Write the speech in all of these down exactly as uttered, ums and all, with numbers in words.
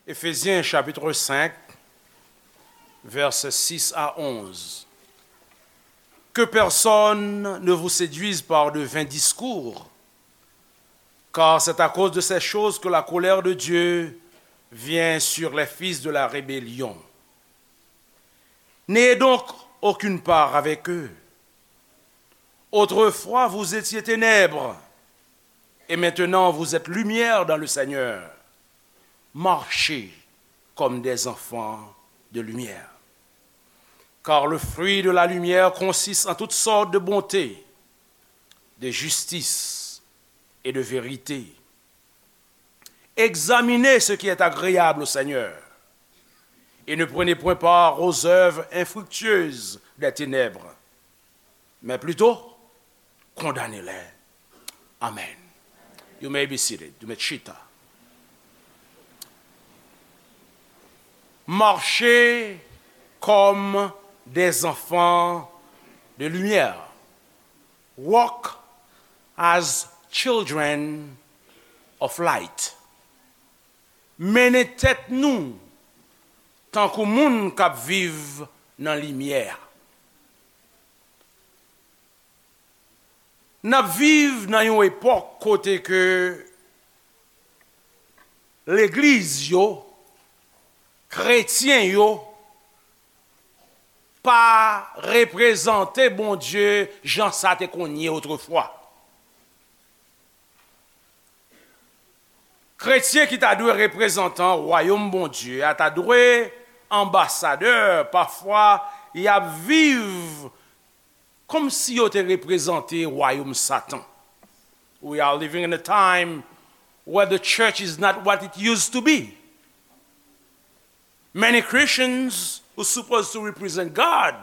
Éphésiens chapitre cinq, versets six à onze. Que personne ne vous séduise par de vains discours, car c'est à cause de ces choses que la colère de Dieu vient sur les fils de la rébellion. N'ayez donc aucune part avec eux. Autrefois, vous étiez ténèbres, et maintenant vous êtes lumière dans le Seigneur. Marchez comme des enfants de lumière. Car le fruit de la lumière consiste en toutes sortes de bonté, de justice et de vérité. Examinez ce qui est agréable au Seigneur, et ne prenez point part aux œuvres infructueuses des ténèbres, mais plutôt condamnez-les. Amen. You may be seated. You may chita. Marchez comme des enfants de lumière. Walk as children of light. Mennen tèt nou tankou moun k ap viv nan limyè. N ap viv nan yon epòk kote ke legliz yo, kretyen yo, pa reprezante Bondye jan sa te konn ye otrefwa. Kretyen ki ta dwe reprezantan wayòm Bondye a ta dwe anbasadè, pafwa y ap viv kòmsi yo te reprezante wayòm Satan. We are living in a time where the church is not what it used to be. Many Christians who supposed to represent God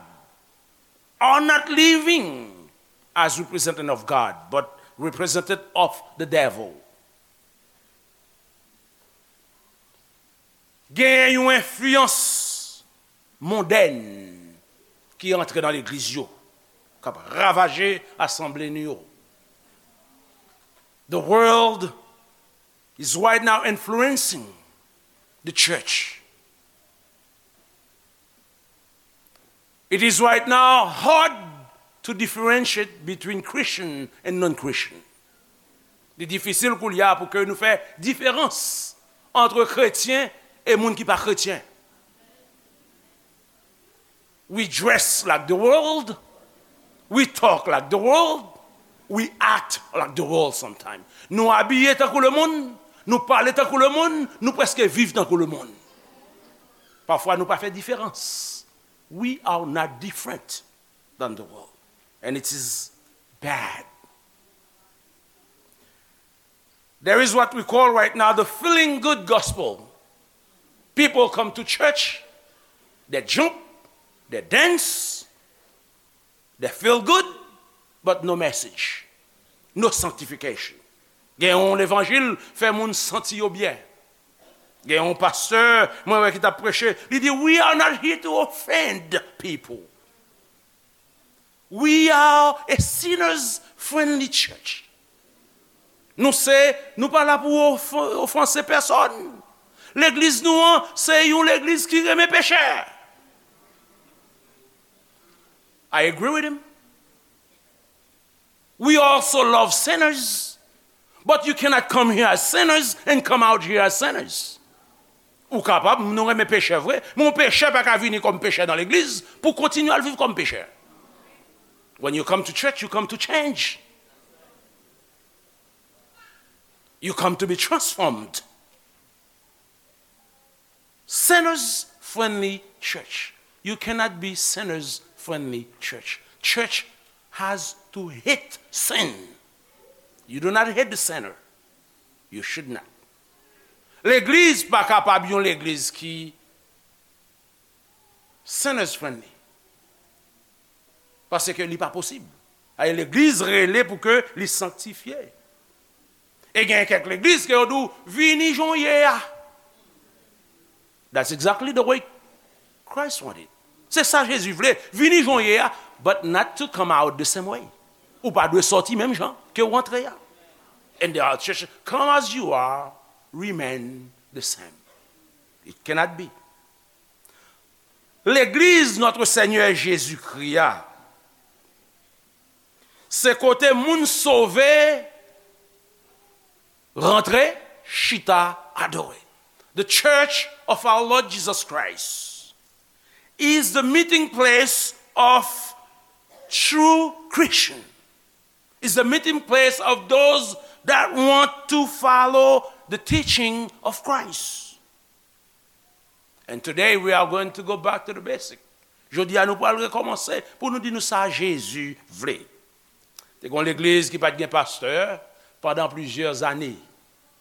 are not living as representative of God, but representative of the devil. Gen yon enfliyans mondèn ki antre nan legliz yo, k ap ravaje asanble nou yo. The world is right now influencing the church. It is right now hard to differentiate between Christian and non-Christian. Li difisil koulye a pou ke nou fè diferans ant kretyen e moun ki pa kretyen. We dress like the world. We talk like the world. We act like the world sometimes. Nou abiye tankou lemonn, nou pale tankou lemonn, nou prèske viv tankou lemonn. Pafwa nou pa fè diferans. We are not different than the world. And it is bad. There is what we call right now the feeling good gospel. People come to church, they jump, they dance, they feel good, but no message, no sanctification. Gen yon levanjil fè moun santi yo byen. Gen yon pastè, mwen wè ki t ap preche, li di, "We are not here to offend people. We are a sinners friendly church." Nou se, nou pa la pou ofen-, ofanse pèsòn. Legliz nou an, se yon legliz ki renmen pechè. I agree with him. We also love sinners. But you cannot come here as sinners and come out here as sinners. Ou kapab, nou renmen pechè vre, men yon pechè pa ka vini kòm pechè nan legliz pou kontinye al viv kòm pechè. When you come to church, you come to change. You come to be transformed. Sinners friendly church. You cannot be sinners friendly church. Church has to hate sin. You do not hate the sinner. You should not. Legliz pa kapab yon legliz ki sinners friendly. Paske li pa posib. Ay, legliz rele pou ke li sanktifye. E gen kèk legliz ke yo di w, "Vini jan w ye a." That's exactly the way Christ wanted. Se sa Jezi vle, vini jan w ye a, but not to come out the same way. Ou pa dwe sòti menm jan ke w antre a. And there are churches, "Come as you are, remain the same." It cannot be. Legliz Notre Seigneur Jésus-Christ a, se kote moun sove rantre, chita, adore. The Church of our Lord Jesus Christ is the meeting place of true Christian. Is the meeting place of those that want to follow the teaching of Christ. And today we are going to go back to the basic. Jodi a nou pral rekòmanse pou nou di nou sa Jezi vle. Te gen yon legliz ki pa t gen pastè pandan plizyè ane.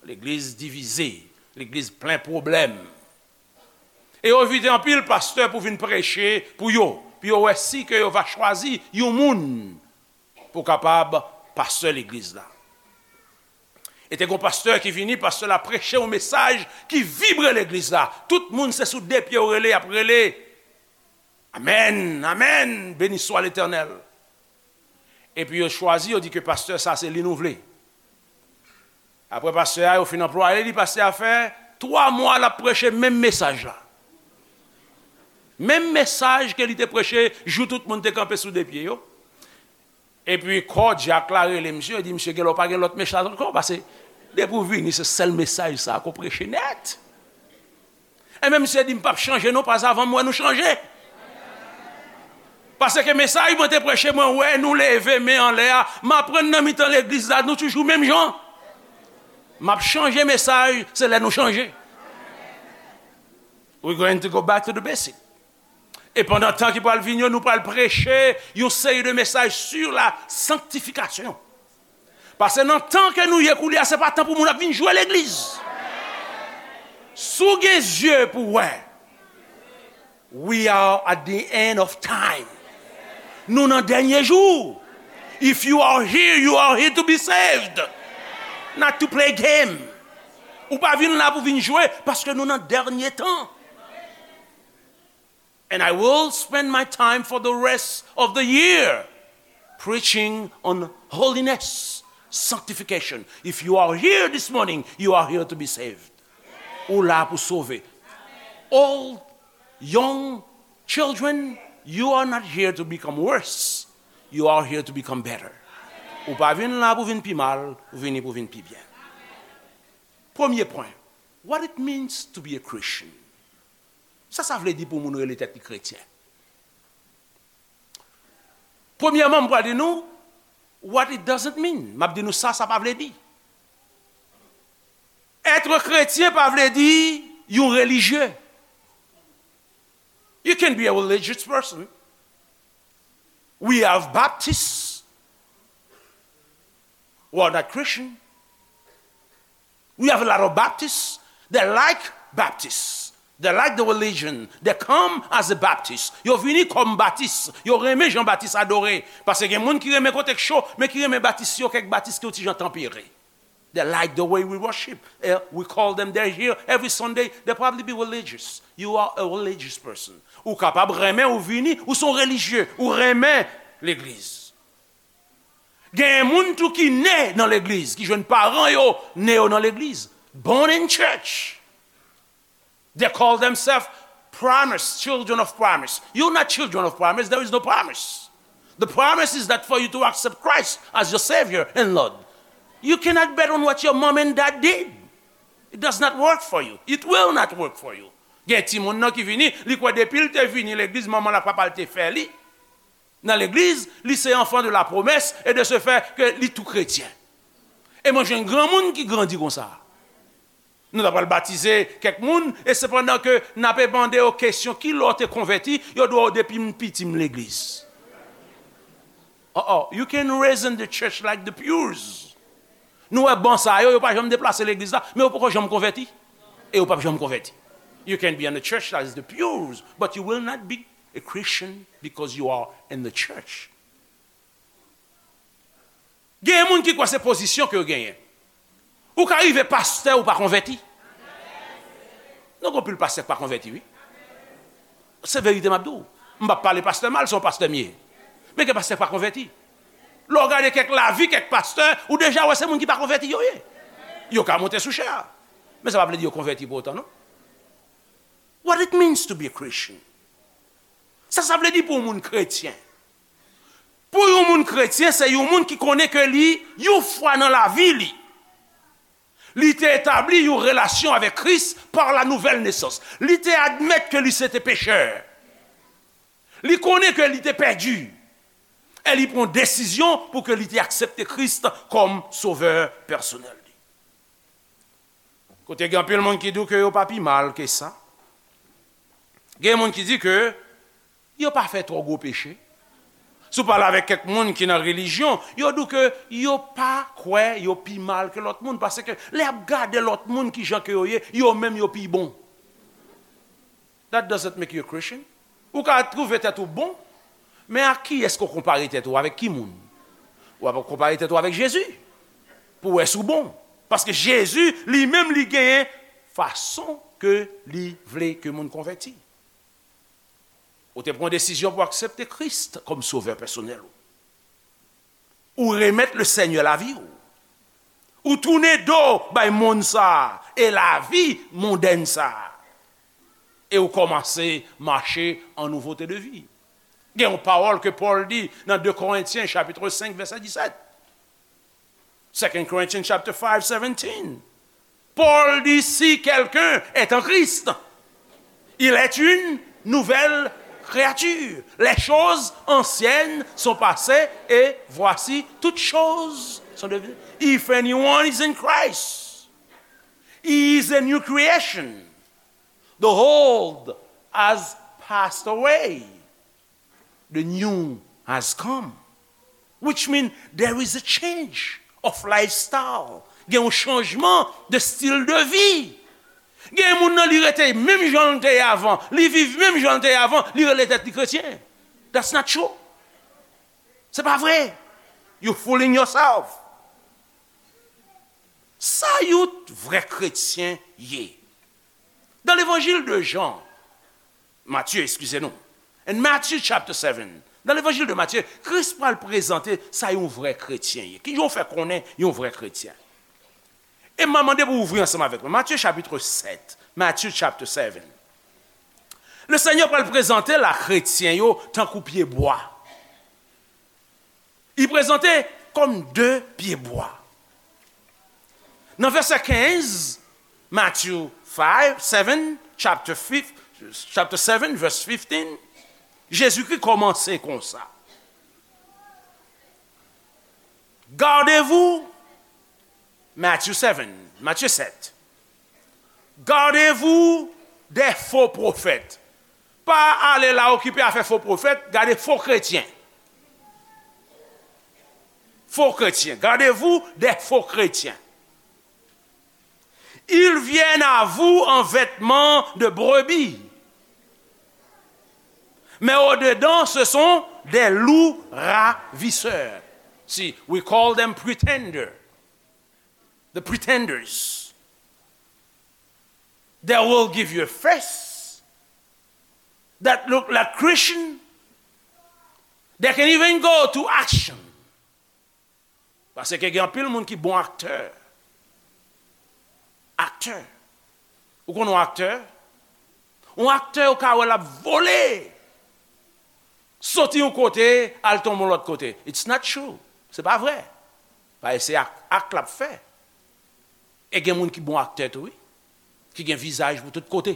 Legliz divize, legliz plen pwoblèm. E yo envite anpil pastè pou vin preche pou yo, pou yo wè si ke yo va chwazi yon moun pou kapab pastè legliz la. E te gen yon pastè ki vini, pastè la preche yon mesaj ki vibre legliz la. Tout moun se sou de pye yo rele, y ap rele. Amèn, amèn, beni swa Letènèl. Epi yo chwazi, yo di ke pastè sa se li nou vle. Apre pastè a, yo fin anplwaye li, pastè a fè twa mwa l ap preche menm mesaj la. Menm mesaj ke li te preche jou tout moun te kanpe sou de pye yo. Epi kòdyak la rele misye, di misye gen lè w pa gen lòt mesaj ankò, paske depi w vini se sèl mesaj sa ke w preche nèt. Enben misye di m p ap chanje non, paske avan m wè nou chanje. Paske mesaj mwen te preche, mwen wè nou leve men anlè a, m aprann nan mitan legliz la nou toujou menm jan. M ap chanje mesaj, se lè nou chanje. We going to go back to the basic. E pandan tan ki pral vini yo, nou pral preche yon seri de mesaj sur la sanctification. Paske nan tan ke nou ye koulye a, se pa tan pou moun ap vin jwe legliz. Si w gen zye pou w wè, we are at the end of time. Nou nan dènye jou. If you are here, you are here to be saved, not to play game. Ou pa vin la pou vin jwe, paske nou nan dènye tan. And I will spend my time for the rest of the year preaching on holiness, sanctification. If you are here this morning, you are here to be saved. Ou la pou sove. Old, young, children, you are not here to become worse. You are here to become better. Ou pa vin la pou vin pi mal, ou vini pou vin pi byen. Premye pwen, what it means to be a Christian. Sa sa vle di pou moun rele tèt li kretyen? Premyèman, m pral di nou what it doesn't mean. M ap di nou sa sa pa vle di. Être chrétien pa vle di yon relijye. You can be a religious person. We have Baptists who are not Christian. We have a lot of Baptists. They like Baptists. They like the religion. They come as a Baptist. Yo vini kòm Batis. Yo renmen jan Batis adore. Paske gen moun ki renmen kote k cho, men ki renmen Batis yo, kèk Batis ki yon ti jan tanpere. They like the way we worship. Eh, we call them, they're here every Sunday. They probably be religious. You are a religious person. Ou kapab renmen, ou vini, ou se yon relijye, ou renmen legliz. Gen moun tou ki ne nan legliz, ki jwenn paran yo ne yo nan legliz. Born in church. They call themselves promise, children of promise. You're not children of promise, there is no promise. The promise is that for you to accept Christ as your Savior and Lord. You cannot bet on what your mom and dad did. It does not work for you. It will not work for you. Gen timoun nan ki vini, li kwè depi l te vini legliz, manman l ak papa l te fè li nan legliz, li se enfant de la promesse et de ce fait que li tou kretyen. E mwen jwenn granmoun ki grandi konsa. Nou ta pral batize kèk moun, e sepandan ke n ape mande yo kesyon, ki lè w te konvèti, yo di w depi m piti m legliz. Oh, oh, you can raise in the church like the pews. Nou wè ban sa yo, yo pa janm deplase legliz la, men yo poko janm konvèti. E yo p ap janm konvèti. You can be in the church that is the pews, but you will not be a Christian because you are in the church. Gen moun ki kwè se pozisyon ke yo genyen. Ou ka rive pastè, ou pa konvèti. Non, gen anpil pastè ki pa konvèti, wi. Se verite m ap di w. M p ap pale pastè mal, se yon pastè m ye. Men gen pastè ki pa konvèti. Lè w gade kèk lavi, kèk pastè, ou deja wè se moun ki pa konvèti yo ye. Yo ka monte sou chè a. Men sa pa vle di yo konvèti pou otan, non. What it means to be a Christian? Sa sa vle di pou yon moun kretyen? Pou yon moun kretyen, se yon moun ki konnen ke li, yon fwa nan lavi li, li te etabli yon relasyon avèk Kris pa la nouvèl nesans. Li te admèt ke li se te pechè. Li konnen ke li te pèdi. E li pran desizyon pou ke li te aksepte Kris kòm sovè pèsonèl li. Kote gen anpil moun ki di w ke yo pa pi mal ke sa. Gen moun ki di ke yo pa fè twò gwo peche. Si w pale avèk kèk moun ki nan relijyon, yo di w ke yo pa kwè yo pi mal ke lòt moun, paske lè y ap gade lòt moun kijan ke yo ye, yo menm yo pi bon. That doesn't make you a Christian. Ou ka twouve tèt ou bon, men ak kiyès ke w konpare tèt ou? Avèk ki moun? Ou ap konpare tèt ou avèk Jezi pou wè si w bon. Paske Jezi, li menm, li genyen fason ke li vle ke moun konvèti. Ou te pran desizyon pou aksepte Kris kòm sovè pèsonèl ou. Ou remèt le Senyè lavi w. Ou tounen do bay monn sa a e lavi mondèn sa a. E ou kòmanse mache an nouvote de vi. Gen yon pawòl ke Pòl di nan de Korentyen chapit senk vèsè disèt. Second Corinthians chapter five seventeen. Paul dit, si quelqu'un est en Christ, il est une nouvelle créature. Les choses anciennes sont passées et voici toutes choses sont devenues. If anyone is in Christ, he is a new creation. The old has passed away. The new has come, which means there is a change of lifestyle. Gen yon chanjman de stil de vi. Gen moun nan, li rete menm jan l te ye avan, li viv menm jan l te ye avan, li rele tèt li kretyen. That's not true. Se pa vre. You fooling yourself. Sa yon vrè kretyen ye? Dans l'évangile de Jean, Matthieu, excusez-nous. In Matthew chapter seven, nan levanjil de Matye, Kris pral prezante sa yon vrè kretyen ye. Kijan w fè konnen yon vrè kretyen? E m a mande pou w ouvri ansanm avèk mwen. Matye chapit sèt, Matthew chapter seven. Le Senyè pral prezante la kretyen yo tankou pye bwa. Li prezante kòm de pye bwa. Nan vèsè kenz, Matthew five, seven, chapter five, chapter seven, verse fifteen, Jezikri kòmanse konsa. Gardez-vous, Matthew seven, Matye sèt. Gardez-vous des faux prophètes. Pa ale la okipe afè fo pwofèt, gade fo kretyen. Faux chrétiens. Gardez-vous des faux chrétiens. Ils viennent à vous en vêtements de brebis, mais au-dedans, ce sont des loups ravisseurs. See, we call them pretender. The pretenders. They will give you a face that look like Christian. They can even go to action. Paske gen anpil moun ki bon aktè. Aktè. Ou konn yon aktè? Yon aktè, ou ka wè l ap vole. Soti yon kote, al tonbe yon lòt kote. It's not true. Se pa vre. Paske se ak, ak l ap fè. E gen moun ki bon aktè tou, wi. Ki gen vizaj pou tout kote.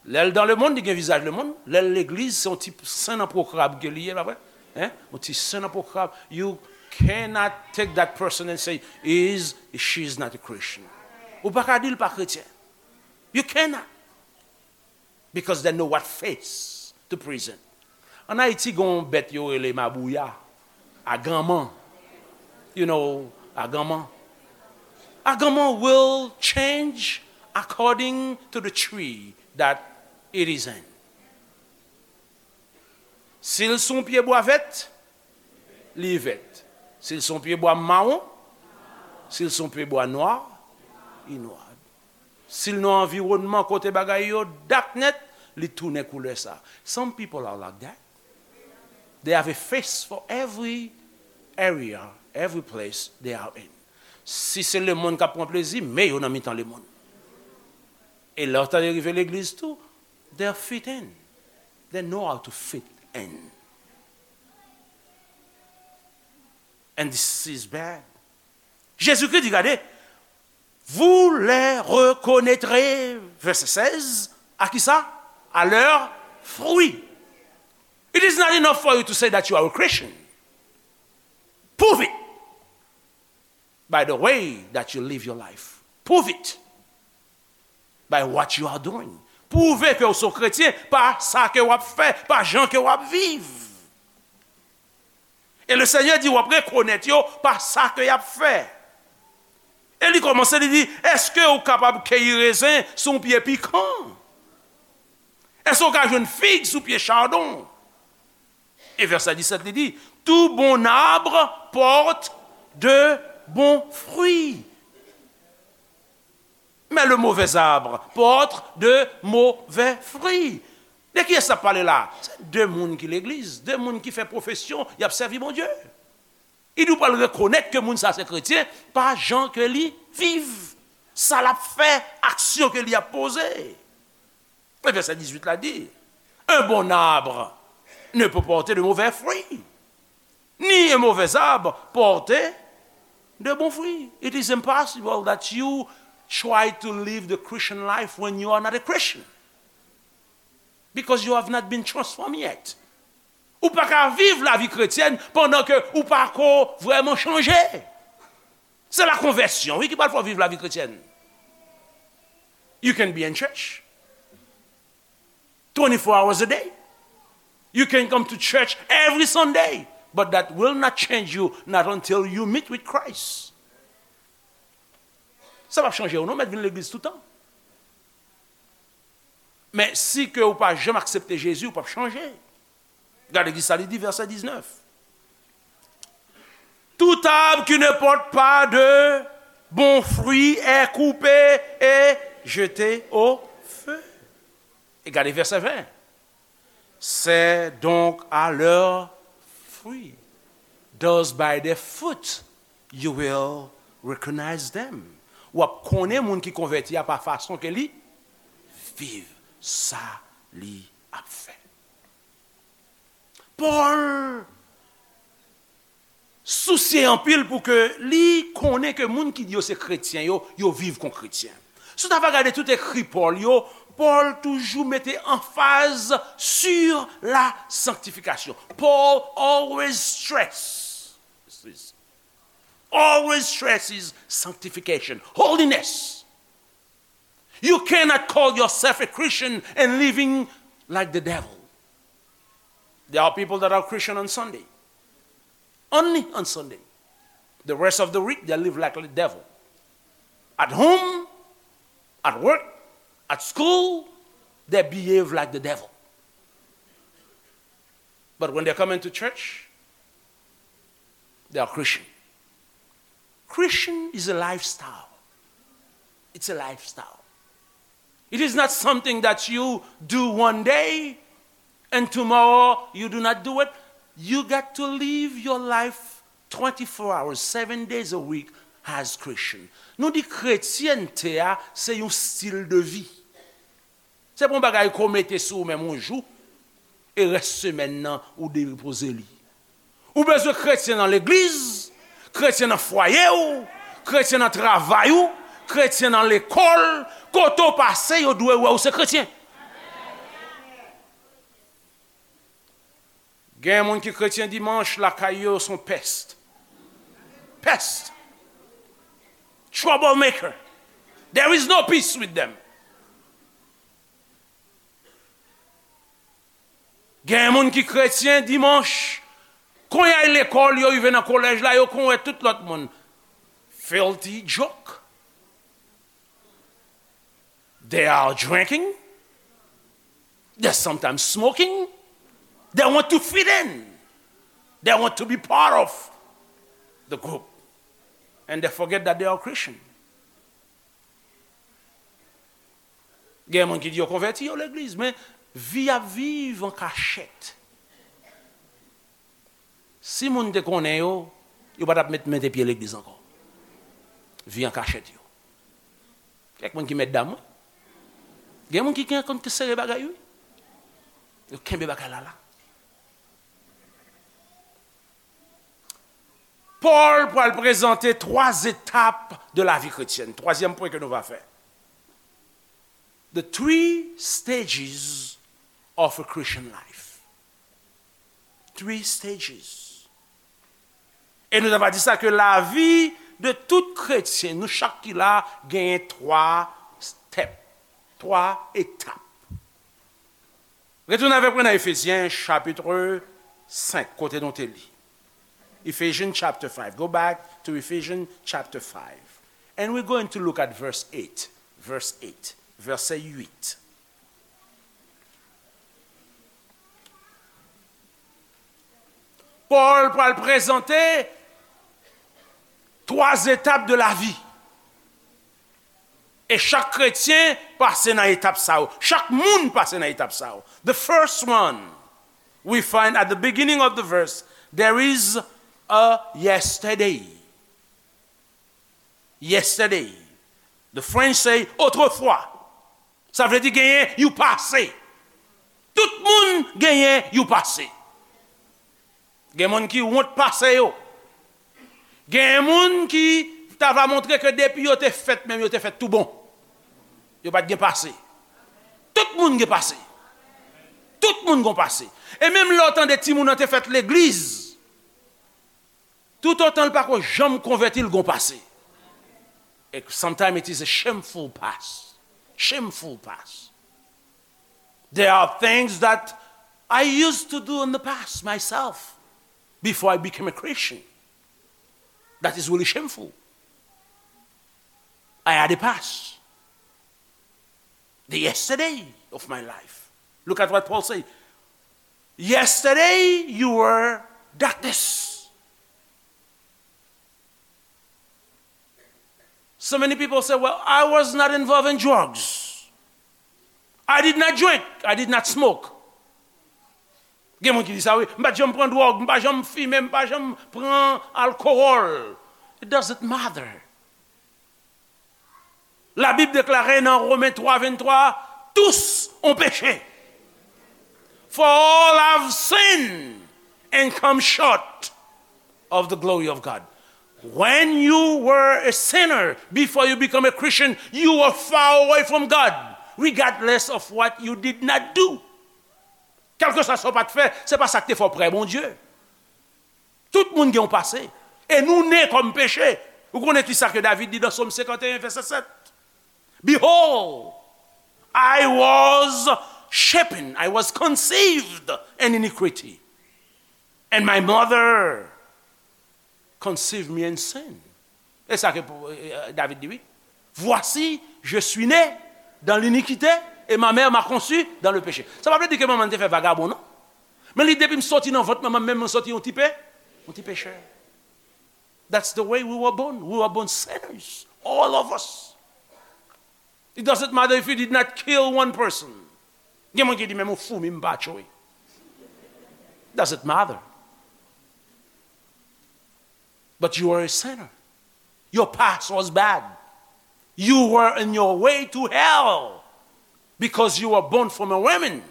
Lè l dan lemonn, li gen vizaj lemonn. Lè l legliz, se yon ti sen nan pwokrab ke li ye, pa vre? Hein? Yon ti sen nan pwokrab. You cannot take that person and say, he is, she is not a Christian. Ou pa ka di l pa kretyen. You cannot. Because they know what face to present. An Ayiti, gen yon bèt yo rele mabouya, aganman. You know, aganman. Aganman will change according to the tree that it is in. Si l sou yon pye bwa vèt, li vèt. Si l sou yon pye bwa mawon, si l sou yon pye bwa nwa, li nwa. Si l nan anviwònman kote bagay yo dak nèt, li tounen koulè sa. Some people are like that. They have a face for every area, every place they are in. Si se lemonn k ap pran plezi, men yo nan mitan lemonn. E lè w tande rive legliz tou, they fit in. They know how to fit in. And this is bad. Jezikri di, gade, vous les reconnaîtrez, verset seize, à qui ça? À leurs fruits. It is not enough for you to say that you are a Christian. Prove it by the way that you live your life. Prove it by what you are doing. Pwouve ke w se yon kretyen pa sa ke w ap fè, pa jan ke w ap viv. E le Senyè di w ap rekonèt yo pa sa ke y ap fè. E li kòmanse, li di, èske w kapab keyi rezen sou yon pye pikan? Èske w ka jwenn fig sou pye chadon? E vèsè disèt, li di, tout bon arbre porte de bons fruits, mais le mauvais arbre porte de mauvais fruits. De kiyès l ap pale la? Se de moun ki legliz, de moun ki fè pwofesyon y ap sèvi Bondye. Li di w pral rekonèt ke moun sa se kretyen pa jan ke li viv, sa l ap fè, aksyon ke li ap poze. E vèsè dizuit la di, un bon arbre ne peut porter de mauvais fruits, ni un mauvais arbre porter de bons fruits. It is impossible that you try to live the Christian life when you are not a Christian, because you have not been transformed yet. Ou pa ka viv lavi kretyèn pandan ke ou pa ko vrèman chanje. Se la konvèsyon, wi, ki pral fè w viv lavi kretyèn. You can be in church twenty-four hours a day. You can come to church every Sunday. But that will not change you, not until you meet with Christ. Sa p ap chanje w non, mèt vin legliz toutan. Men si ke ou pa janm aksepte Jezi, ou p ap chanje. Gade ki sa li di, vèsè diznèf. Tout arbre qui ne porte pas de bons fruits est coupé et jeté au feu. E gade vèsè ven. C'est donc à leurs fruits. Those by their fruit you will recognize them. W ap konnen moun ki konvèti a pa fason ke li viv, sa li ap fè. Pòl sousye anpil pou ke li konnen ke moun ki di yo se kretyen yo, yo viv kon kretyen. Si w ta va gade tout ekri Pòl yo, Pòl toujou mete anfaz sur la sanctification. Paul always stress, always stresses sanctification, holiness. You cannot call yourself a Christian and living like the devil. There are people that are Christian on Sunday. Only on Sunday. The rest of the week, they live like the devil. At home, at work, at school, they behave like the devil. But when they come into church, they are Christian. Christian is a lifestyle. It's a lifestyle. It is not something that you do one day and tomorrow you do not do it. You got to live your life twenty-four hours, seven days a week as Christian. Nou di kretyènte a se yon stil de vi. Se pa yon bagay ke w mete sou ou menm yon jou, e rès semèn nan ou depoze li. Ou bezwen kretyen nan legliz, kretyen nan fwaye w, kretyen nan travay ou, kretyen nan lekòl, kote w pase yo dwe wè w se kretyen. Gen moun ki kretyen dimanch, lakay yo se yon pest. Pest. Troublemaker. There is no peace with them. Gen moun ki kretyen dimanch, kon y al lekòl, yo rive nan kolèj la, yo konn wè tout lòt moun. Filthy joke. They are drinking. They're sometimes smoking. They want to fit in. They want to be part of the group. And they forget that they are Christian. Gen moun ki di yo konvèti, yo legliz, men vi y ap viv an kachèt. Si moun te konnen yo, yo pa t ap met, mete pye legliz ankò. Vi an kachèt yo. Kèk moun ki mèt dam, wi. Gen moun ki gen konn sere bagay, wi. Yo kenbe bagay la la. Pòl pral prezante twa etap de lavi kretyèn. Twazyèm pwen ke nou va fè. The three stages of a Christian life. Three stages. E nou ta va di sa ke lavi de tout kretyen, nou chak ki la, genyen twa step, twa etap. Retounen avèk mwen nan Efezyen chapit senk, kote nou te li. Ephesians chapter five. Go back to Ephesians chapter five. And we're going to look at verse eight. Verse eight. Vèsè uit. Pòl pral prezante twa etap de lavi. E chak kretyen pase nan etap sa yo. Chak moun pase nan etap sa yo. The first one, we find at the beginning of the verse, there is a yesterday. Yesterday. The French say autrefois. Sa vle di genyen yon pase. Tout moun genyen yon pase. Gen moun ki wont pase yo. Gen moun ki ta va montre ke depi yo te fèt menm, yo te fèt tou bon. Yo pa t gen pase. Tout moun gen pase. Tout moun gon pase. E menm lè w tande timoun nan te fèt legliz, toutotan l pa ko janm konvèti, l gon pase. E sometimes it is a shameful past. Shameful past. There are things that I used to do in the past myself before I became a Christian. That is really shameful. I had a past. The yesterday of my life. Look at what Paul said. Yesterday you were darkness. So many people say, "Well, I was not involved in drugs. I did not drink. I did not smoke." Gen moun ki di sa, wi. "M pa t janm pran dwòg, m pa janm fimen, m pa janm pran alkowòl." It doesn't matter. Labib deklare nan Women twa venntwa, "Tous ont péché. For all have sinned and come short of the glory of God." When you were a sinner, before you become a Christian, you were far away from God, regardless of what you did not do. Kèlkeswa sa w pa t fè, se pa sa k te fè w prè Bondye. Tout moun gen yon pase. E nou ne kòm peche. Ou konnen ki sa ke David di nan Sòm senkanteyen, vèsè sèt? "Behold, I was shapen, I was conceived in iniquity, and my mother conceived me in sin." E sa ke pou, e, e, David di, wi. "Voici, je suis né dans l'iniquité, et ma mère m'a conçu dans le péché." Sa pa vle di ke manman m te fè vagabon, non. Men li, depi m soti nan vant manman m, menm mwen soti yon ti pe, yon ti pechè. That's the way we were born. We were born sinners, all of us. It doesn't matter if you did not kill one person. Gen moun ki di, "Men mwen foumi m pa tchwe." Doesn't matter. But you are a sinner. Your past was bad. You were in your way to hell because you were born from a woman.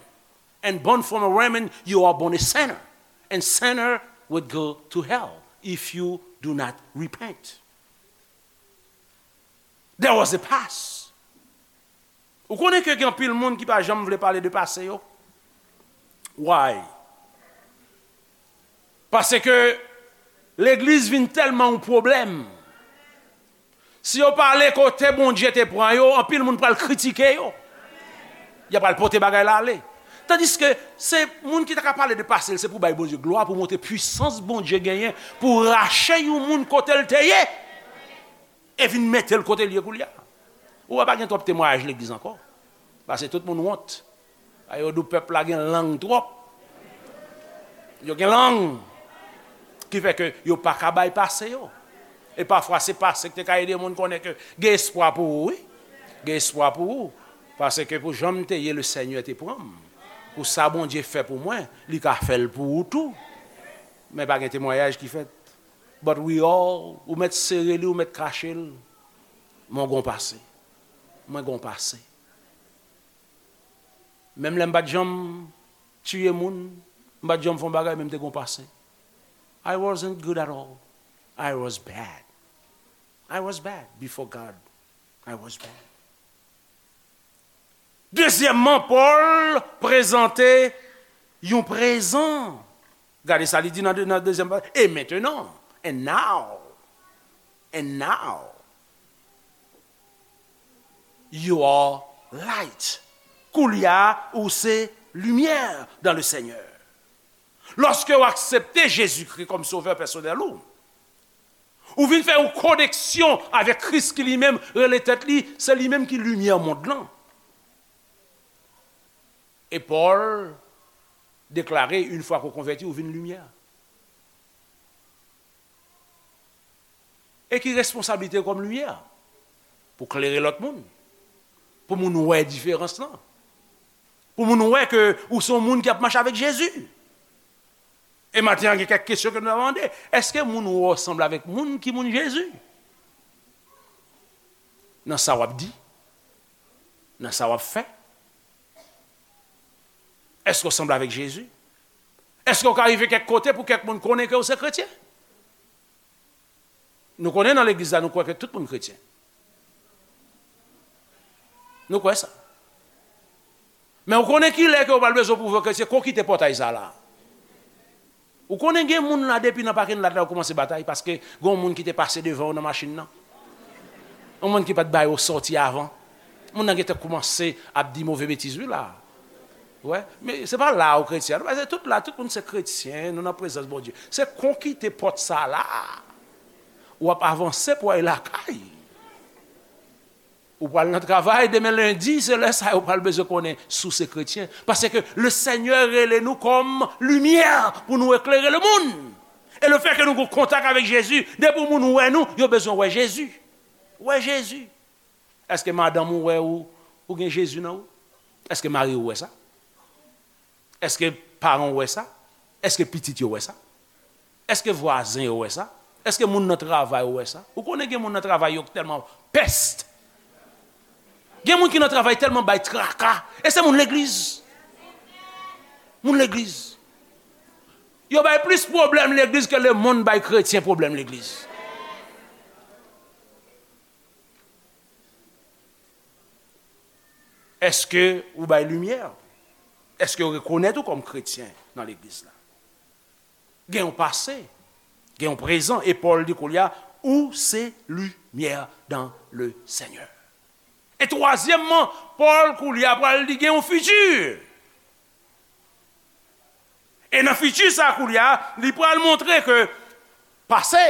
And born from a woman, you are born a sinner. And sinner would go to hell if you do not repent. There was a past. Ou konnen ke gen anpil moun ki pa janm vle pale de pase yo? Why? Paske legliz vin tèlman yon pwoblèm. Si yo pale kote Bondye te pran yo, anpil moun pral kritike yo. Y ap al pote bagay la ale. Tandiske se moun ki ta ka pale de pase l, se pou bay Bondye glwa, pou montre pwisans Bondye genyen, pou rache yon moun kote l te ye, e vin mete l kote l ye koulye a. Ou wè, pa gen twòp temwayaj legliz ankò. Paske tout moun wont. A yo di w pèp la gen lang twòp. Yo gen lang. Ki fè ke yo pa ka bay pase yo. E pafwa se pase ki te ka ede moun konnen ke gen espwa pou ou, wi. Gen espwa pou ou. Paske pou jan m te ye, Lesenyè te pran m. Pou sa Bondye fè pou mwen, li ka fè l pou ou tou. Men pa gen temwayaj ki fèt. But we all, ou mèt sere li, ou mèt kache l. Mwen gon pase. Mwen gon pase. Menm lè m pa t janm tiye moun, m pa t janm fè yon bagay, men m te gen yon pase. I wasn't good at all. I was bad. I was bad before God. I was bad. Dezyèmman, Pòl prezante yon prezan. Gade sa li di nan, nan dezyèm pa. Et maintenant, and now, and now, you are light. Koulye a, ou se limyè dans le Seigneur. Lòske w aksepte Jezikri kòm sovè pèsonèl ou, ou vin fè yon koneksyon avèk Kris ki li menm rele tèt li, se li menm ki limyè mond lan. E Pòl deklare, yon fwa ke w konvèti, ou vin limyè. E ki responsablite w kòm limyè? Pou klere lòt moun. Pou moun wè diferans lan. Pou moun wè ke ou se yon moun ki ap mache avèk Jezi. E maten an, gen kèk kesyon ke nou ap mande. Èske moun ou wè w sanble avèk moun ki moun Jezi? Nan sa w ap di? Nan sa w ap fè? Èske w sanble avèk Jezi? Èske w ka rive kèk kote pou kèk moun konnen ke w se kretyen? Nou konnen nan legliz la, nou kwè ke tout moun kretyen. Nou kwè sa. Men ou konnen kilè ke w pral bezwen pwouve ke se kon kite pòtay sa la. Ou konnen gen moun la depi nan pakin lat la yo kòmanse batay paske gen yon moun ki te pase devan yo nan machin nan. Yon moun ki pa t ba yo sòti avan. Moun nan gentan kòmanse ap di move betiz wi la. Wè, men se pa la ou kretyen. Paske tout la, tout moun se kretyen, nou nan prezans Bondye. Se kon kite pòt sa la. W ap avanse pou w al lakay. Ou pral nan travay demen lendi, se lè sa yo pral bezwen konnen si w se kretyen. Paske le Senyè rele nou kòm limyè pou nou eklere lemonn. E lefètke nou gen kontak avèk Jezi, depi moun wè nou, yo bezwen wè Jezi. Wè Jezi. Èske madanm ou wè ou, ou gen Jezi nan ou? Èske mari ou wè sa? Èske paran w wè sa? Èske pitit yo wè sa? Èske vwazen yo wè sa? Èske moun nan travay ou wè sa? Ou konnen gen moun nan travay yo ki tèlman pès. Gen moun ki nan travay tèlman bay traka. E se moun legliz. Moun legliz. Yo bay plis pwoblèm legliz ke lemonn bay kretyen pwoblèm legliz. Èske ou bay limyè? Èske yo rekonèt ou kòm kretyen nan legliz la? Gen yon pase, gen yon prezan, e Pòl di koulye a, ou se limyè dans le Seigneur. E twazyèmman, Pòl koulye a pral di gen yon fiti. E nan fiti sa koulye a, li pral montre ke pase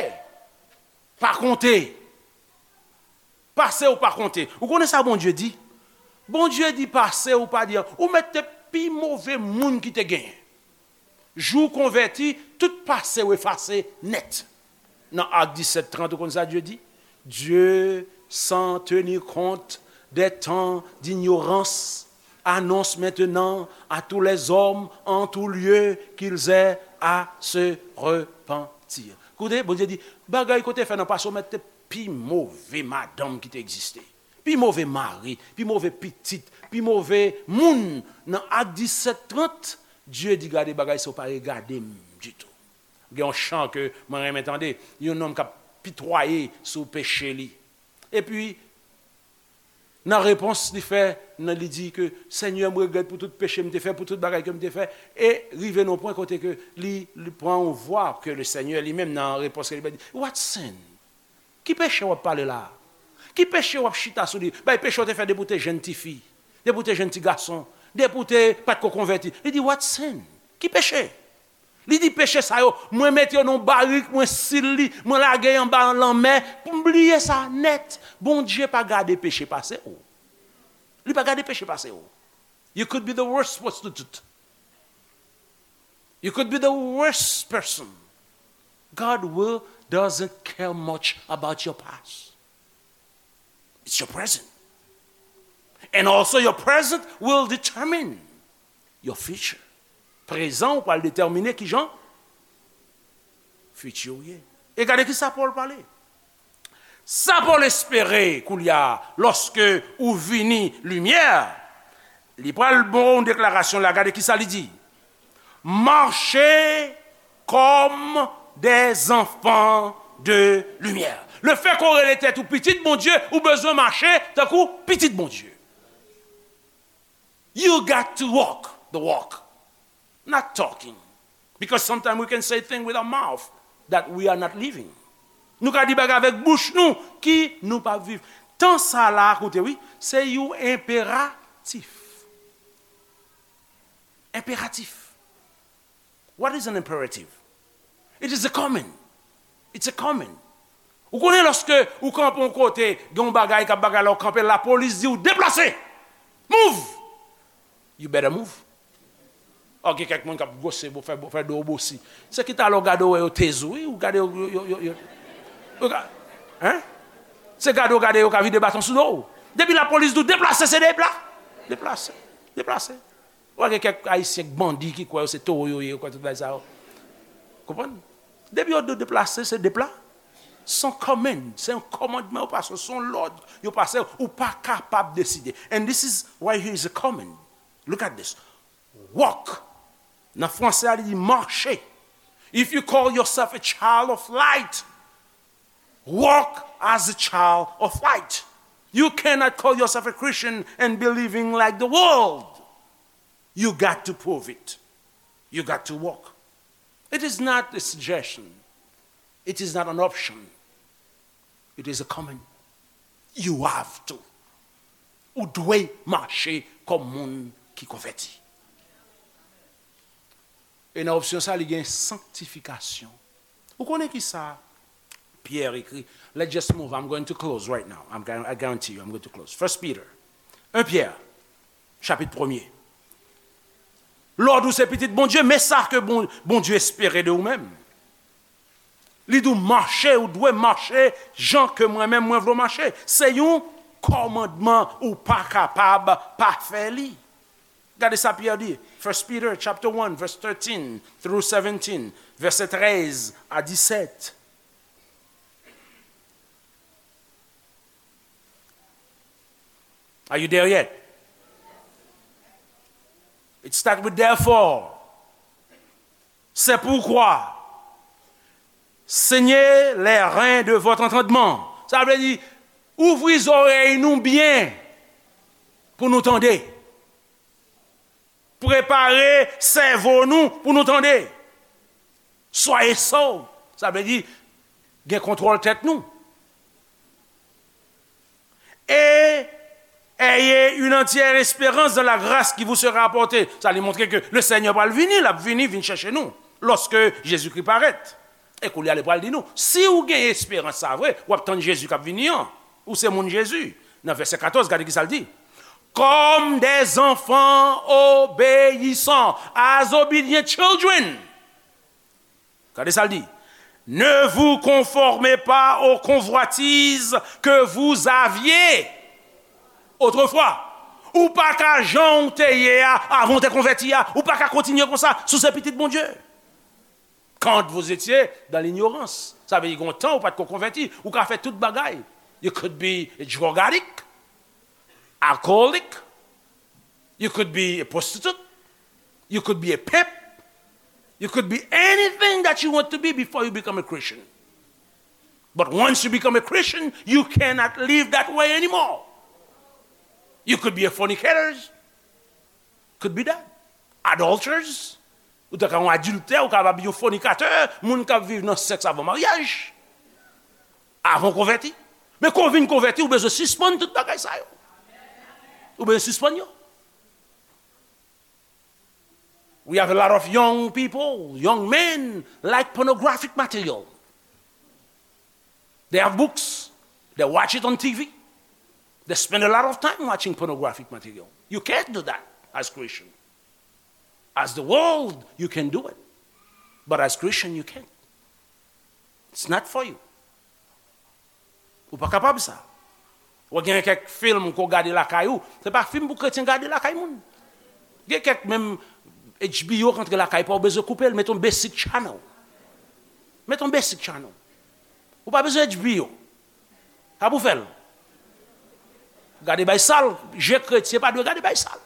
pa konte. Pase w pa konte. Ou konnen sa Bondye di? Bondye di pase w pa di an. Ou mèt te pi move moun ki te genyen. Jou w konvèti, tout pase w efase nèt. Nan Ak disèt trant, ou konn sa Dye di? Dieu, sans tenir compte des temps d'ignorance, annonce maintenant à tous les hommes en tout lieu qu'ils aient à se repentir. Koute, Bondye di, bagay kote fè nan pase w mèt te pi move madanm ki te egziste. Pi move mari, pi move pitit, pi move moun. Nan Ak disèt trant, Dye di, gade bagay sa yo pa regade m ditou. Gen yon chan ke mwen renmen tande, yon nonm k ap pitwaye sou peche li. Epi, nan repons li fè, nan li di ke, Senyè, m regrèt pou tout peche m te fè, pou tout bagay ke m te fè. E rive nan yon pwen kote ke li, li pran yon vwa ke le Senyè li menm nan repons ke li bay di, What sin? Ki peche w ap pale la a? Ki peche w ap chita sou li? Bay peche w te fè depi w te jenn tifi, depi w te jenn ti gason, depi w te pa t ko konvèti. Li di, What sin? Ki peche? Li di, Peche sa yo, mwen mete yo nan yon barik, mwen sil li, mwen lage y anba lanmè, pou m bliye sa nèt. Bondye pa gade peche pase w. Li pa gade peche pase w. You could be the worst prostitute. You could be the worst person. God will doesn't care much about your past. It's your present. And also your present will determine your future. Prezan ou pral detèmine kijan fiti ou ye. E gade ki sa Pòl pale. Sa Pòl espere koulye a, lòske ou vini limyè, Li pral ba w yon deklarasyon la, gade ki sa li di. Marchez comme des enfants de lumière. Le fait qu'on rele tèt ou pitit Bondye, ou bezwen mache tankou pitit Bondye. You got to walk the walk, not talking. Because sometimes we can say things with our mouth that we are not living. Nou ka di bagay avèk bouch nou ki nou pa viv. Tan sa la, koute wi, se yon enperatif. Enperatif. What is an imperative? It is a command. It's a command. Ou konnen lòske ou kanpe yon kote, gen yon bagay k ap bagay la, ou kanpe, lapolis di w deplase. Move! You better move. Ò, gen kèk moun k ap gwose, fè, fè do w bosi. Se ki talè w gade w wè yo teze w, wi, ou gade yo, yo, yo, yo, yo, yo ka, hein? Se gade w gade yo ka vide baton sou do w. Depi lapolis di w deplase, se depla-, deplase, deplase. Ou wè gen kèk Ayisyen k bandi ki kwè yo se towo yo ye, yo kwè tout bagay sa yo. Konprann? Depi yo di w deplase, se depla-, se yon command, se yon kòmandman yo pase, se yon lòd yo pase, ou pa kapab deside. And this is why here is a command. Look at this. Walk. Nan franse a, li di mache. If you call yourself a child of light, walk as a child of light. You cannot call yourself a Christian and be living like the world. You got to prove it. You got to walk. It is not a suggestion. It is not an option. It is a command. You have to. Ou dwe mache kòm moun ki konvèti. E nan opsyon sa, li gen sanktifikasyon. Ou konnen ki sa Pierre écrit? Let's just move. I'm going to close right now. I'm, I guarantee you, I'm going to close. First Peter, un Pierre, chapitre premier. Lòd ou se pitit Bondye, men sa ke Bon-, Bondye espere de ou menm. Li di w mache, ou dwe mache jan ke mwen menm mwen vle w mache. Se yon kòmandman, ou pa kapab pa fè li. Gade sa Pyè di, First Peter chapter one, verse thirteen through seventeen, vèsè trèz a disèt. Are you there yet? It start with therefore. C'est pourquoi, saignez les reins de votre entendement. Sa vle di, ouvri zòrèy nou byen pou nou tande. Prepare sèvo nou pou nou tande. Soyez sot. Sa vle di, gen kontwòl tèt nou. Et ayez une entière espérance dans la grâce qui vous sera apportée. Sa li montre ke le Seigneur pral vini, l ap vini, vin chèche nou, lorsque Jésus-Christ paraît. E koulye a, li pral di nou, si ou gen esperans sa vre, w ap tann Jezi k ap vini an. Ou se moun Jezi. Nan vèsè katòz, gade ki sa l di. Comme des enfants obéissants, as obedient children. Gade sa l di. Ne vous conformez pas aux convoitises que vous aviez autrefois. Ou pa ka jan w te ye a, avan w te konvèti a. Ou pa ka kontinye konsa si w se pitit Bondye. Quand vous étiez dans l'ignorance. Sa vle di, gen yon tan ou pa t ko konvèti. Ou ka fè tout bagay. You could be a drug addict, alcoholic. You could be a prostitute. You could be a pimp. You could be anything that you want to be before you become a Christian. But once you become a Christian, you cannot live that way anymore. You could be a fornicator. Could be that. Adulterers. Ou ta ka yon adiltè, ou kapab yon fònikatè, moun k ap viv nan sèks avan maryaj. Avan w konvèti. Men kan w vin konvèti, ou bezwen sispann tout bagay sa yo. Ou bezwen sispann yo. We have a lot of young people, young men, like pornographic material. They have books, they watch it on T V. They spend a lot of time watching pornographic material. You can't do that as Christian. As the world, you can do it. But as Christian, you can't. It's not for you. Ou pa kapab sa. Ou gen kèk fim ke w gade lakay ou, se pa fim pou kretyen gade lakay moun. Gen kèk menm H B O k antre lakay pa w, ou bezwen koupe l, mete yon basic channel. Mete yon basic channel. Ou pa bezwen H B O. Sa pou fè l. Gade bay sal, je kretyen pa dwe gade bay sal.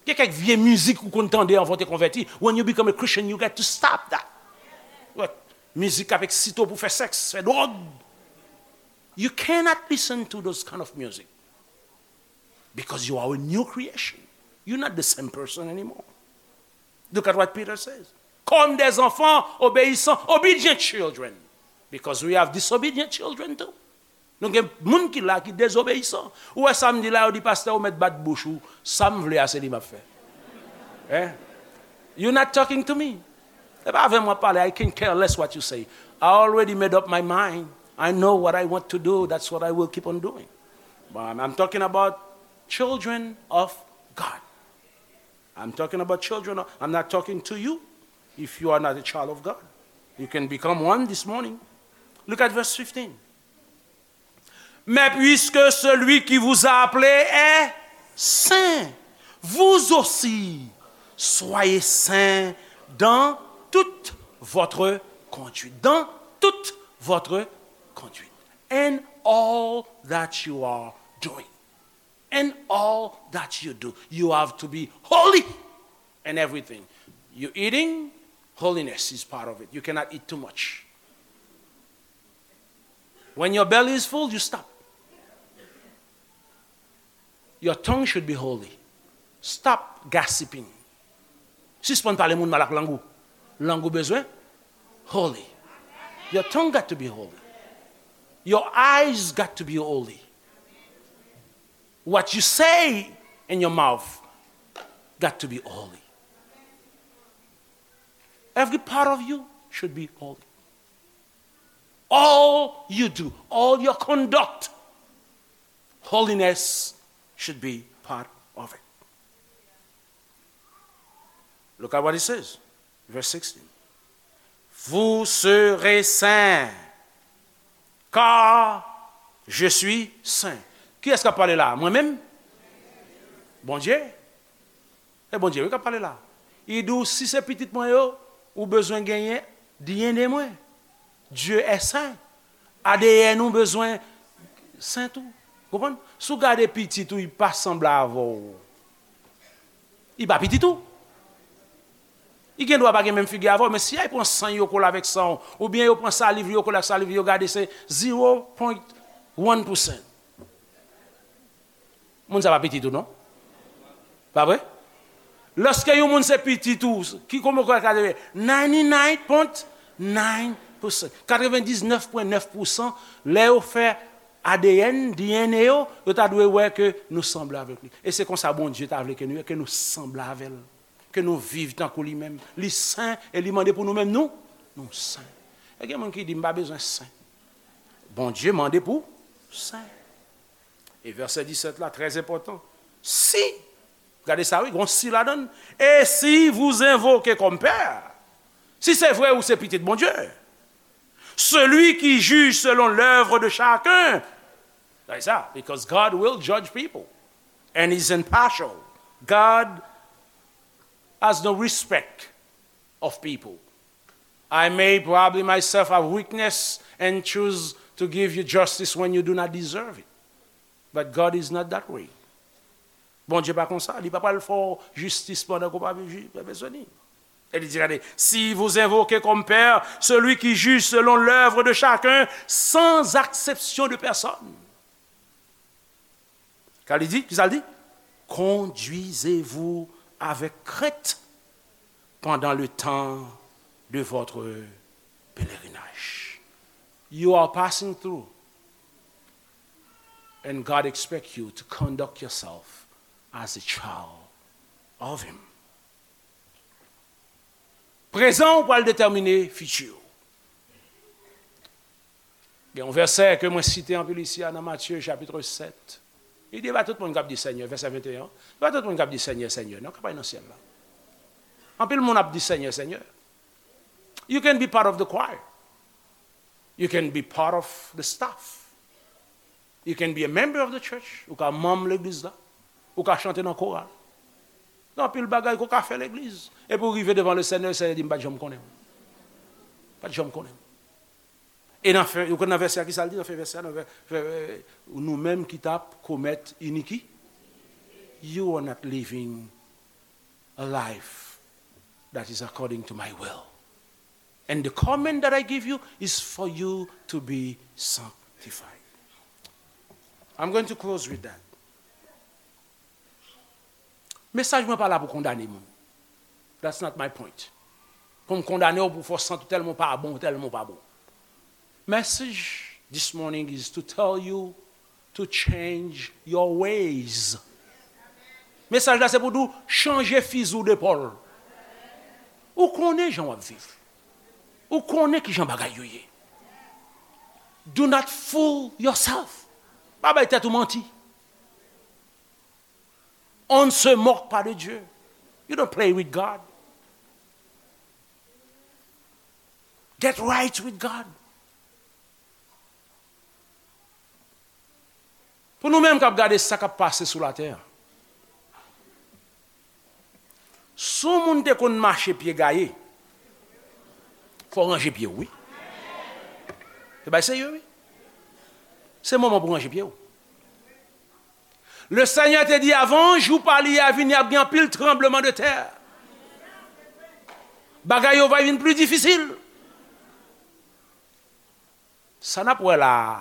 Gen kèk vye mizik ou konn tande anvan w te konvèti. When you become a Christian, you got to stop that. What? Mizik k ap eksite w pou fè sèks, fè dwòg. You cannot listen to those kind of music because you are a new creation. You're not the same person anymore. Look at what Peter says. Comme des enfants obéissants, obedient children. Because we have disobedient children too. Nou gen moun ki la ki dezobeyisan. Ou wè sa m di la, yo di, "Pastè, ou mèt bat bouch ou. Sa m vle a, se li m ap fè." Eh? You're not talking to me. Se pa avè m w ap pale. I can care less what you say. I already made up my mind. I know what I want to do. That's what I will keep on doing. But I'm, I'm talking about children of God. I'm talking about children. I'm not talking to you if you are not a child of God. You can become one this morning. Look at verse fifteen. Mais puisque celui qui vous a appelé est saint, vous aussi soyez saints dans toute votre conduite. Dans toute votre conduite. In all that you are doing. In all that you do, you have to be holy in everything. You eating, holiness is part of it. You cannot eat too much. When your belly is full, you stop. Your tongue should be holy. Stop gossiping. Sispann pale moun mal ak lang ou. Lang ou bezwen holy. Your tongue got to be holy. Your eyes got to be holy. What you say in your mouth got to be holy. Every part of you should be holy. All you do, all your conduct, holiness should be part of it. Look at what it says, verse sixteen. Vous serez saints, car je suis saint. Kiyès k ap pale la? Mwen menm? Bondye. E Bondye wi k ap pale la. Li di w, si se pitit mwen yo, ou bezwen genyen D N A mwen. Dieu est saint. A D N ou bezwen sen tou. Konprann? Si w gade pitit ou, li pa sanble avè w. Li pa pitit ou. Li gen dwa pa gen menm figi avè w, men si y al pran san yo kole avèk san w, oubyen yo pran saliv li yo kole ak saliv li, yo gade se zero point one percent. Moun sa pa pitit ou non. Pa vre? Lòske yon moun se pitit ou, ki kòman w ka rele? Ninety-nine point nine percent. Katrevendiznèf pwen nèf pousan, lè yo fè A D N, D N A yo, yo ta dwe wè ke nou sanble avèk li. E se konsa Bondye ta vle ke nou ye, ke nou sanble avè l. Ke nou viv tankou li menm. Li sen e li mande pou nou menm nou, nou sen. E gen moun ki di, "M pa bezwen sen." Bondye mande pou sen. E vèsè disèt la, trè enpòtan. Si, gade sa wi, gon si ladan l. Et si vous invoquez comme père, si se vre ou se pitit Bondye, celui qui juge selon l'œuvre de chacun, gade sa, because God will judge people and is impartial. God has no respect of people. I may probably myself have weakness and choose to give you justice when you do not deserve it. But God is not that way. Bondye pa konsa, li pa pral fè w jistis pandan ke w pa bezwen li. E li di, gade, si vous invoquez comme père celui qui juge selon l'œuvre de chacun sans acception de personne. Ka li di? Kisa l di? Conduisez-vous avec crainte pendant le temps de votre pèlerinaj. You are passing through, and God expects you to conduct yourself as a child of Him. Prezan ou pral detèmine fiti ou. Gen yon vèsè ke mwen site anpil isi a nan Matye chapit sèt. Li di, e pa tout moun k ap di Senyè, vèsè venteyen an, e pa tout moun k ap di Senyè, Senyè, non, k ap al nan syèl la. Anpil moun ap di Senyè, Senyè. You can be part of the choir. You can be part of the staff. You can be a member of the church. Ou ka manm legliz la. Ou ka chante nan koral. Gen anpil bagay ke w ka fè legliz. Epi w rive devan le Senyè, le Senyè di, "M pa t janm konnen w. Pa t janm konnen w." E nan fen, ou konn nan vèsè a, kisa l di nan fen vèsè a, nan vè, vè, vè, nou menm ki t ap komèt iniki, you are not living a life that is according to my will. And the command that I give you is for you to be sanctified. I'm going to close with that. Mesaj mwen pa la pou kondane moun. That's not my point. Pou m kondane w, pou fè w santi w tèlman w pa bon, w tèlman w pa bon. Message this morning is to tell you to change your ways. Mesaj la se pou di w chanje fizi w de pòl. Ou konnen jan w ap viv. Ou konnen ki jan bagay yo ye. Do not fool yourself. Pa bay tèt ou manti. On ne se moque pas de Dieu. You don't play with God. Get right with God. Pou nou menm k ap gade sa k ap pase sou latè a, si yon moun te konn mache pye gaye, fò w ranje pye w, wi. Se bay serye, wi. Se moman pou w ranje pye w. Le Senyè te di, avan jou pa li a vini, ap gen anpil tranbleman de tè. Bagay yo va vin pli difisil. Sa n ap wè la a,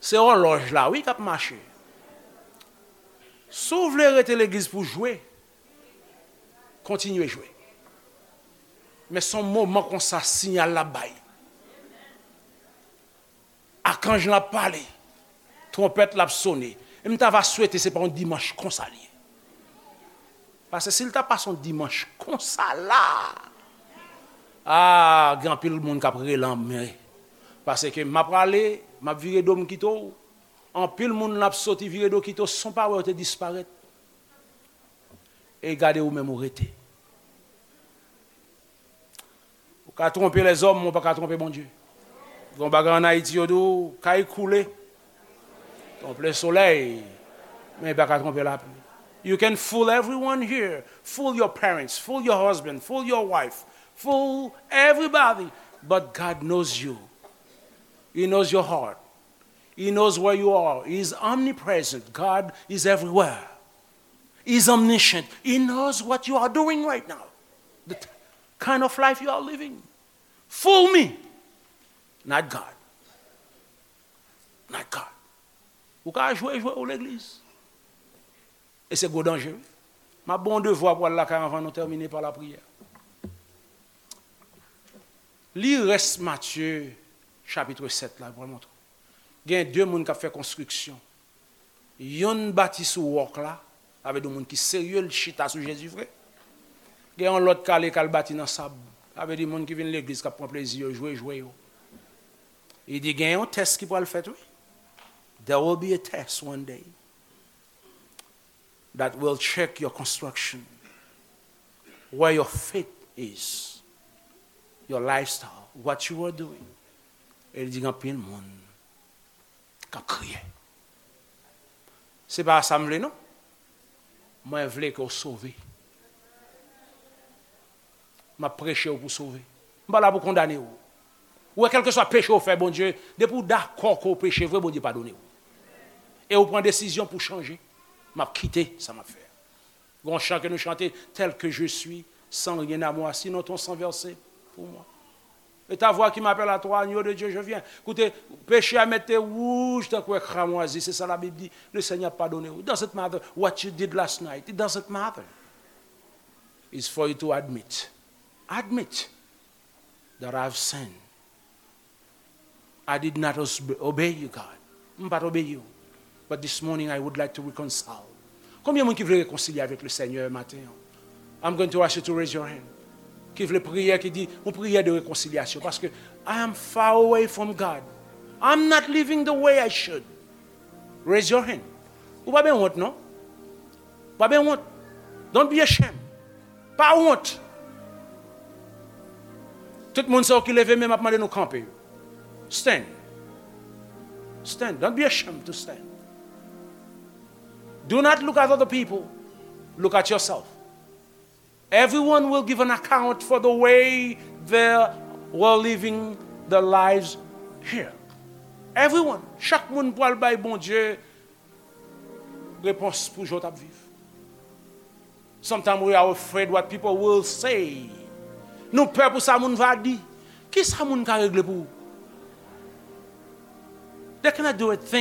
se òlòj la, wi, k ap mache. Si w vle rete legliz pou jwe, kontinye jwe. Men se yon moman konsa, siyal la bay. Akanj lan ap pale. Twonpèt la ap sone. E m ta va swete se pa yon dimanch konsa li ye. Paske si l ta pase yon dimanch konsa la, a, gen anpil moun k ap rele anmwe. Paske m ap prale, m ap vire do m kite w. Anpil moun l ap soti vire do kite w san w pa wè yo te disparèt. E gade ou menm ou rete. Ou ka twonpe lèzòm, men ou pa ka twonpe Bondye. Gen yon bagay ann Ayiti, yo di w, kay koule, twonpe solèy, men li pa ka twonpe lapli. You can fool everyone here. Fool your parents, fool your husband, fool your wife, fool everybody. But God knows you. He knows your heart. He knows where you are. He is omnipresent. God is everywhere. He is omniscient. He knows what you are doing right now. The t- kind of life you are living. Fool me, not God. Not God. Ou ka jwe jwe ou legliz. E se gwo danje, wi. M ap ba w yon devwa pou w al lakay anvan nou tèmine pa lapriyè. Li rès Matye chapit sèt la, pou w al montre w. Gen de moun k ap fè konstriksyon. Yonn bati sou wòk la, sa vle di moun ki serye, l chita sou Jezi vre. Gen yon lòt k ale k al bati nan sab, sa vle di moun ki vin legliz k ap pran plezi yo, jwe jwe yo. Li di gen yon tès ki pral fèt, wi. There will be a test one day that will check your construction, where your faith is, your lifestyle, what you are doing. E li di gen anpil moun k ap kriye. Se pa sa m vle, non. Mwen vle ke w sove. M ap preche w pou sove. M pa la pou kondane w. Ou wè, kèlkeswa peche w fè Bondye, depi w dakò ke w peche vre, Bondye padone w. E w pran desizyon pou chanje. M ap kite sa m ap fè a. Gon chan ke nou chante, tel que je suis, sans rien à moi, sinon ton sang versé pour moi. Et ta voix qui m'appelle à toi, agneau de Dieu, je viens. Koute, peche a mete wouj tankou cramwazi, se sa Labib di. Le Seigneur padone w. It doesn't matter what you did last night. It doesn't matter. It's for you to admit. Admit that I've sinned. I did not os- obey you, God. M pa t obeyi w. But this morning, I would like to reconcile. Konbyen moun ki vle rekonsilye avèk le Seigneur maten an? I'm going to ask you to raise your hand. Ki vle priyè, ki di, yon priyè de rekonsilyasyon. Paske I am far away from God. I'm not living the way I should. Raise your hand. Ou pa ben wont, non? Ou pa ben wont. Don't be ashamed. Pa wont. Tout moun sa yo ki leve men, m ap mande nou kanpe. Stand. Stand. Don't be ashamed to stand. Do not look at other people. Look at yourself. Everyone will give an account for the way they were living their lives here. Everyone. Chak moun pral bay Bondye repons pou jan w t ap viv. Sometimes we are afraid what people will say. Nou pè pou sa moun va di. Ki sa moun ka regle pou ou? They cannot do a thing.